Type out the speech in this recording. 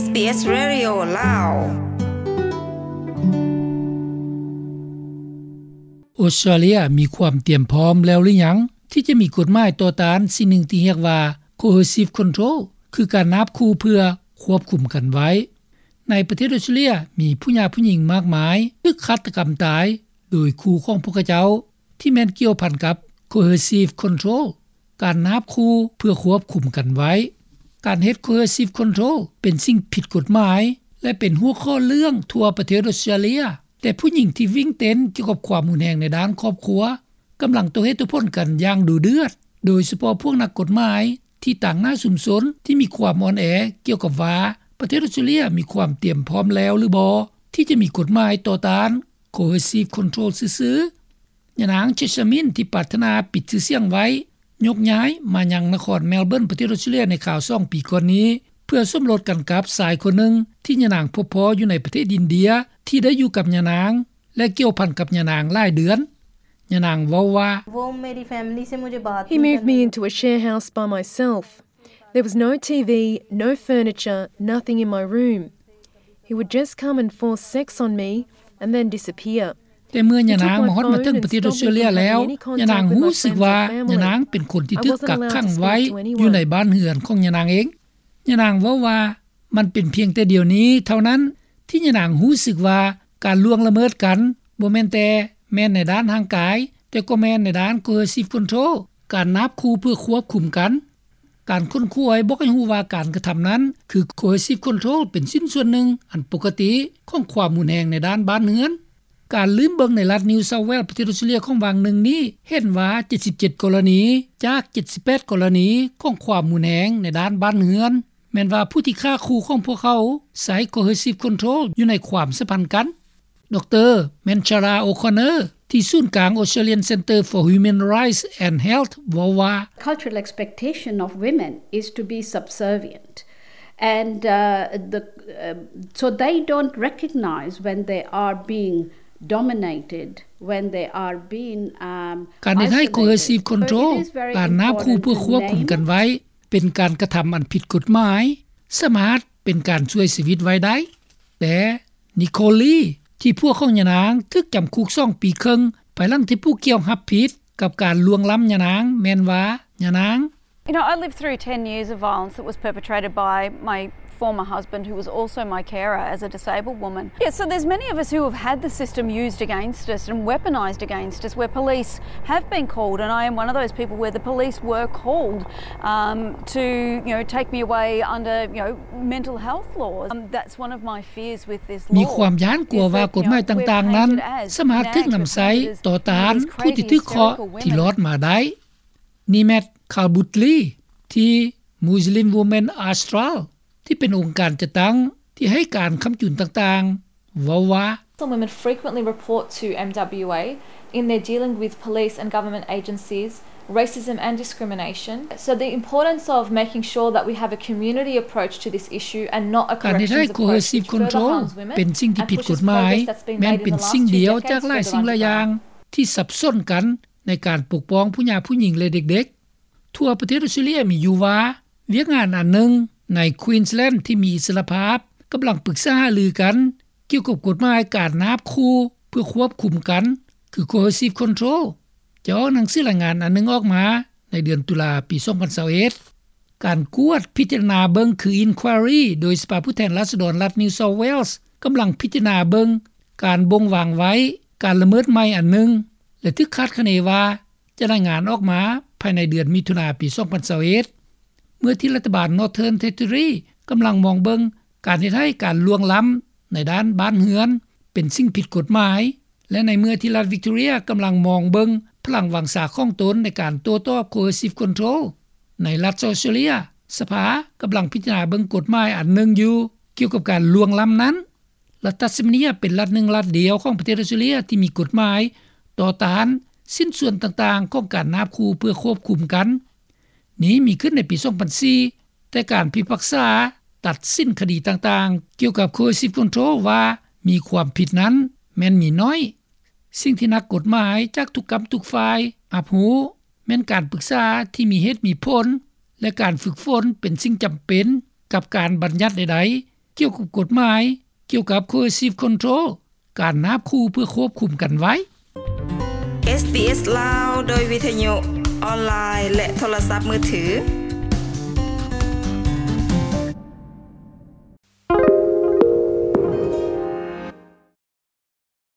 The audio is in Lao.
SBS Radio ລາວ. ອົດສະຕຣາເລຍມີຄວາມຕຽມພ້ອມແລ້ວຫຼືຍັງ ທີ່ຈະມີກົດໝາຍຕໍ່ຕ້ານສິ່ງໜຶ່ງທີ່ຮຽກວ່າ coercive control ຄືການນາບຂູ່ເພື່ອຄວບຄຸມກັນໄວ້? ໃນປະເທດອົດສະຕຣາເລຍ ມີຜູ້ຫຍາຜູ້ຍິງມາກມາຍຖືກຄາດຕະກຳຕາຍໂດຍຄູ່ຂອງພວກເຂົາເຈົ້າ ທີ່ແມ່ນກ່ຽວພັນກັບ coercive control ການນາບຂູ່ເພື່ອຄວບຄຸມກັນໄວ້. ການເຮັດ coercive control ເປັນສິ່ງຜິດກົດໝາຍ ແລະ ເປັນຫົວຂໍ້ເລື່ອງທົ່ວປະເທດອົດສະຕຣາເລຍ, ແຕ່ຜູ້ຍິງທີ່ວິ່ງເຕັ້ນກ່ຽວກັບຄວາມຮຸນແຮງໃນດ້ານຄອບຄົວ ກຳລັງໂຕ້ເຫດໂຕ້ຜົນກັນຢ່າງດຸເດືອດ, ໂດຍສະເພາະພວກນັກກົດໝາຍທີ່ຕາງໜ້າຊຸມຊົນທີ່ມີຄວາມອ່ອນແອກ່ຽວກັບວ່າ ປະເທດອົດສະຕຣາເລຍມີຄວາມຕຽມພ້ອມແລ້ວຫຼືບໍ່ ທີ່ຈະມີກົດໝາຍຕໍ່ຕ້ານ coercive control ຊື່ໆ. ຍານາງ Jessamine ທີ່ປາດຖະໜາປິດຊື່ສຽງໄວ້ ຍົກຍ້າຍມາຍັງນະຄອນ Melbourne ປະເທດອົດສະຕຣາເລຍໃນຄາວສອງປີກ່ອນນີ້ ເພື່ອສົມລົດກັນກັບຊາຍຄົນໜຶ່ງ ທີ່ຍານາງພົບພໍ້ຢູ່ໃນປະເທດອິນເດຍ ທີ່ໄດ້ຢູ່ກັບຍານາງ ແລະ ກ່ຽວພັນກັບຍານາງຫຼາຍເດືອນ. ຍານາງເວົ້າວ່າ He moved me into a share house by myself. There was no TV, no furniture, nothing in my room. He would just come and force sex on me and then disappear. ແຕ່ເມື່ອຍານາງມາຮອດມາເຖິງປະເທດອົດສະຕຣາເລຍແລ້ວ ຍານາງຮູ້ສຶກວ່າຍານາງເປັນຄົນທີ່ຖືກກັກຂັງໄວ້ຢູ່ໃນບ້ານເຮືອນຂອງຍານາງເອງ. ຍານາງເວົ້າວ່າ ມັນເປັນພຽງແຕ່ດຽວນີ້ເທົ່ານັ້ນ ທີ່ຍານາງຮູ້ສຶກວ່າການລ່ວງລະເມີດກັນ ບໍ່ແມ່ນແຕ່ແມ່ນໃນດ້ານຮ່າງກາຍ, ແຕ່ກໍແມ່ນໃນດ້ານ coercive control ການນາບຂູ່ເພື່ອຄວບຄຸມກັນ. ການຄົ້ນຄວ້າບອກໃຫ້ຮູ້ວ່າການກະທຳນັ້ນ ຄື coercive control ເປັນຊິ້ນສ່ວນໜຶ່ງອັນປົກກະຕິຂອງຄວາມຮຸນແຮງໃນດ້ານບ້ານເຮືອນ. ການລືມເບິ່ງໃນລັດ New South Wales ປະເທດອົດສະຕຣາເລຍຂອງຫວ່າງໜຶ່ງນີ້ ເຫັນວ່າ ເຈັດສິບເຈັດ ກໍລະນີ ຈາກ ເຈັດສິບແປດ ກໍລະນີຂອງຄວາມຮຸນແຮງໃນດ້ານບ້ານເຮືອນ ແມ່ນວ່າຜູ້ທີ່ຂ້າຂູ່ຂອງພວກເຂົາໃຊ້ coercive control ຢູ່ໃນຄວາມສຳພັນກັນ. ດຣ Manchara O'Connor ທີ່ສູນກາງ Australian Centre for Human Rights and Health ເວົ້າວ່າ Cultural expectation of women is to be subservient and, uh, the, uh, so they don't recognize when they are being dominated, when they are being, um, ການເຮັດໃຫ້ coercive control ການນາບຂູ່ເພື່ອຄວບຄຸມກັນໄວ້ ເປັນການກະທຳອັນຜິດກົດໝາຍ ສາມາດເປັນການຊ່ວຍຊີວິດໄວ້ໄດ້. ແຕ່ Nicole Lee ທີ່ຜົວຂອງຍານາງຖືກຈຳຄຸກສອງປີເຄິ່ງ ພາຍຫຼັງທີ່ຜູ້ກ່ຽວຮັບຜິດກັບການລ່ວງລ້ຳຍານາງ ແມ່ນວ່າຍານາງ You know, I lived through ten years of violence that was perpetrated by my former husband, who was also my carer as a disabled woman. Yeah, so there's many of us who have had the system used against us and weaponized against us, where police have been called, and I am one of those people where the police were called, um, to, you know, take me away under, you know, mental health laws. Um, that's one of my fears with this law. ມີຄວາມຢ້ານກົວວ່າກົດໝາຍຕ່າງໆນັ້ນ ສາມາດຖືກນຳໃຊ້ຕໍ່ຕ້ານຜູ້ທີ່ຖືກເຄາະທີ່ລອດມາໄດ້. Nimet Khalbutli ທີ່ Muslim Women Australia ທີ່ເປັນອົງການຈັດຕັ້ງທີ່ໃຫ້ການຄ້ຳຈຸນຕ່າງໆ ເວົ້າວ່າ Muslim women frequently report to M W A in their dealing with police and government agencies, racism and discrimination. So the importance of making sure that we have a community approach to this issue and not a corrections approach which further harms women and pushes progress that's been made in the last two decades further underground. ການເຮັດໃຫ້ coercive control ເປັນສິ່ງທີ່ຜິດກົດໝາຍ ແມ່ນເປັນສິ່ງດຽວຈາກຫຼາຍສິ່ງຫຼາຍຢ່າງ ທີ່ສັບສົນກັນໃນການປົກປ້ອງຜູ້ຫຍາຜູ້ຍິງ ແລະ ເດັກໆ. ທົ່ວປະເທດອົດສະຕຣາເລຍມີຢູ່ວ່າ ວຽກງານອັນໜຶ່ງໃນ Queensland ທີ່ມີອິດສະຫຼະພາບ ກຳລັງປຶກສາຫາລືກັນກ່ຽວກັບກົດໝາຍການນາບຂູ່ເພື່ອຄວບຄຸມກັນ ຄື coercive control ຈະອອກໜັງສືລາຍງານອັນໜຶ່ງອອກມາໃນເດືອນຕຸລາ ປີສອງພັນຊາວເອັດ. ການກວດພິຈາລະນາເບິ່ງ ຄື inquiry ໂດຍສະພາຜູ້ແທນລາຊະດອນລັດ New South Wales ກຳລັງພິຈາລະນາເບິ່ງການບົ່ງວາງໄວ້ ການລະເມີດໃໝ່ອັນໜຶ່ງ ແລະ ຖືກຄາດຄະເນວ່າຈະລາຍງານອອກມາພາຍໃນເດືອນມິຖຸນາ ປີສອງພັນຊາວເອັດ ເມື່ອທີ່ລັດຖະບານ Northern Territory ກຳລັງມອງເບິ່ງການເຮັດໃຫ້ການລ່ວງລ້ຳໃນດ້ານບ້ານເຮືອນເປັນສິ່ງຜິດກົດໝາຍ ແລະ ໃນເມື່ອທີ່ລັດ Victoria ກຳລັງມອງເບິ່ງພະລັງວັງຊາຂອງຕົນໃນການໂຕ້ຕອບ coercive control ໃນລັດ South Australia ສະພາກຳລັງພິຈາລະນາເບິ່ງກົດໝາຍອັນໜຶ່ງຢູ່ກ່ຽວກັບການລ່ວງລ້ຳນັ້ນ. ລັດ Tasmania ເປັນລັດໜຶ່ງລັດດຽວຂອງປະເທດອົດສະຕຣາເລຍທີ່ມີກົດໝາຍຕໍ່ຕ້ານຊິ້ນສ່ວນຕ່າງໆຂອງການນາບຂູ່ເພື່ອຄວບຄຸມກັນ. ນີ້ມີຂຶ້ນໃນປີສອງພັນສີ່ ແຕ່ການພິພາກສາຕັດສິນຄະດີຕ່າງໆກ່ຽວກັບ coercive control ວ່າມີຄວາມຜິດນັ້ນແມ່ນມີໜ້ອຍ. ສິ່ງທີ່ນັກກົດໝາຍຈາກທຸກກ້ຳທຸກຝ່າຍຮັບຮູ້ ແມ່ນການປຶກສາທີ່ມີເຫດມີຜົນ ແລະ ການຝຶກຝົນເປັນສິ່ງຈຳເປັນກັບການບັນຍັດໃດ ກ່ຽວກັບກົດໝາຍ ກ່ຽວກັບ Coercive Control ການນາບຂູ່ເພື່ອຄວບຄຸມກັນໄວ້. ເອສບີເອສລາວ ໂດຍວິທະຍຸ ອອນລາຍ ແລະ ໂທລະສັບມືຖື